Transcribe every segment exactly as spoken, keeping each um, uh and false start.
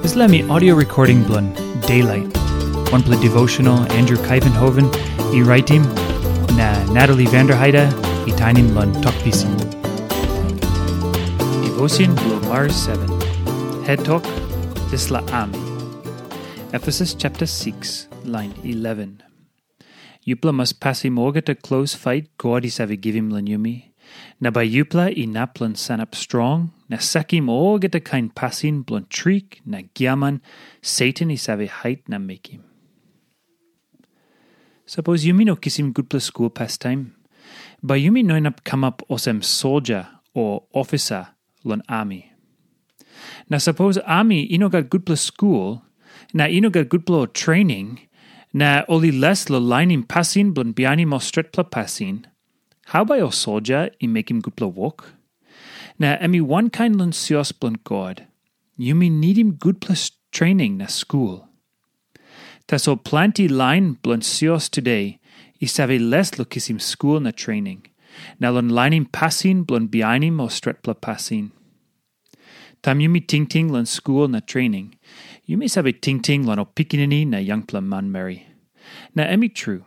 Dispela mi audio recording bilong Daylight, wanpela devotional Andrew Kaivenhoven i raitim, na Natalie Vanderheide i tainim long Tok Pisin. Devotion bilong Mars seven. Het tok, dispela ami. Efesus chapter six, line eleven. Yupela mas pasim olgeta klos fait God i save givim long yumi, na bai yupela inap long sanap strong na sakim olgeta kain pasin bilong trik na giaman Satan i save hait na mekim. Sapos yumi no kisim gutpela skul pastaim, bai yumi no inap kamap olsem soldia o ofisa long ami. Na sapos ami i no gat gutpela skul, na i no gat gutpela trening, na ol i les long lainim pasin bilong bihainim ol stretpela pasin, hau bai ol soldia i mekim gutpela wok? Na em i wankain long sios bilong God. Yumi nidim gutpela trening na skul. Tasol planti lain bilong sios today i save les long kisim skul na trening, na long lainim pasin bilong bihainim ol stretpela pasin. Taim yumi tingting long skul na trening, yumi save tingting long ol pikinini na yangpela manmeri. Na em i tru.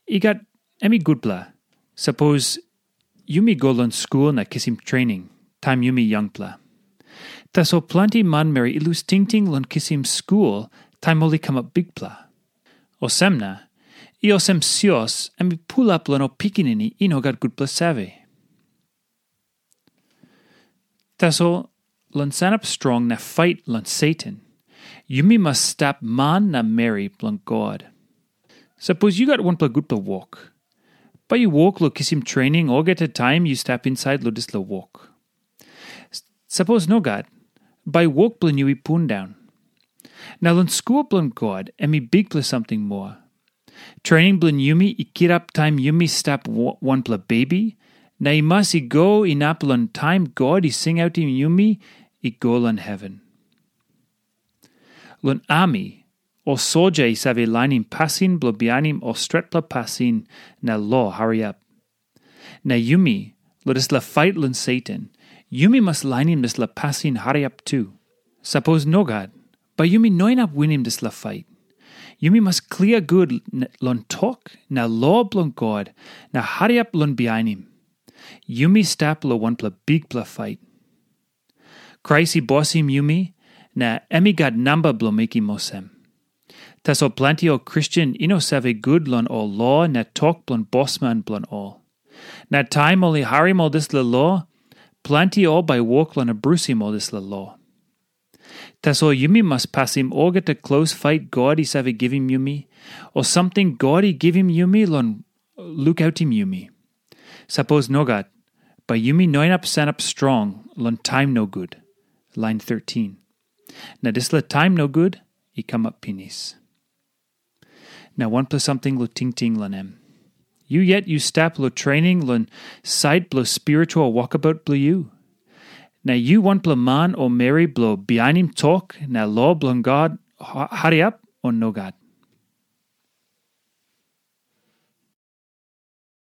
I gat, em i gutpela, sapos yumi go long skul na kisim trening taim yumi yangpela. Tasol planti manmeri i lus tingting long kisim skul taim ol i kamap bikpela. Olsem na, i olsem sios em i pulap long ol pikinini i no gat gutpela save. Tasol, long sanap strong na fait long Satan, yumi mas stap man na meri bilong God. Sapos yu gat wanpela gutpela wok, bai yu wok long kisim trening olgeta taim yu stap insait long dispela wok. Sapos nogat, bai wok bilong yu i pundaun. Na long skul bilong God em i bikpela samting moa. Trening bilong yumi i kirap taim yumi stap wanpela bebi, na i mas i go inap long taim God i singautim yumi i go long heven. Long ami, ol soldia i save lainim pasin bilong bihainim ol stretpela pasin na lo hariap. Na yumi, long dispela fait long Satan, yumi mas lainim dispela pasin hariap tu. Sapos nogat, bai yumi no inap winim dispela fait. Yumi mas klia gut long tok na lo bilong God na hariap long bihainim. Yumi stap long wanpela bikpela fait. Krais i bosim yumi, na em i gat namba bilong mekim olsem. Tasol planti ol Kristen i no save gut long ol lo na tok bilong bosman bilong ol. Na taim ol i harim ol dispela lo, planti ol bai wok long abrusim ol dispela lo. Tasol yumi mas pasim olgeta klos fait God i save givim yumi, o samting God i givim yumi long lukautim yumi. Sapos nogat, bai yumi no inap sanap strong long taim nogut. Lain thirteen. Na dispela taim nogut i kamap pinis. Na wanpela samting long tingting long em. Yu yet yu stap long trening long sait bilong spiritual wokabaut bilong yu. Na yu wanpela man o meri bilong bihainim tok na lo bilong God hariap o nogat?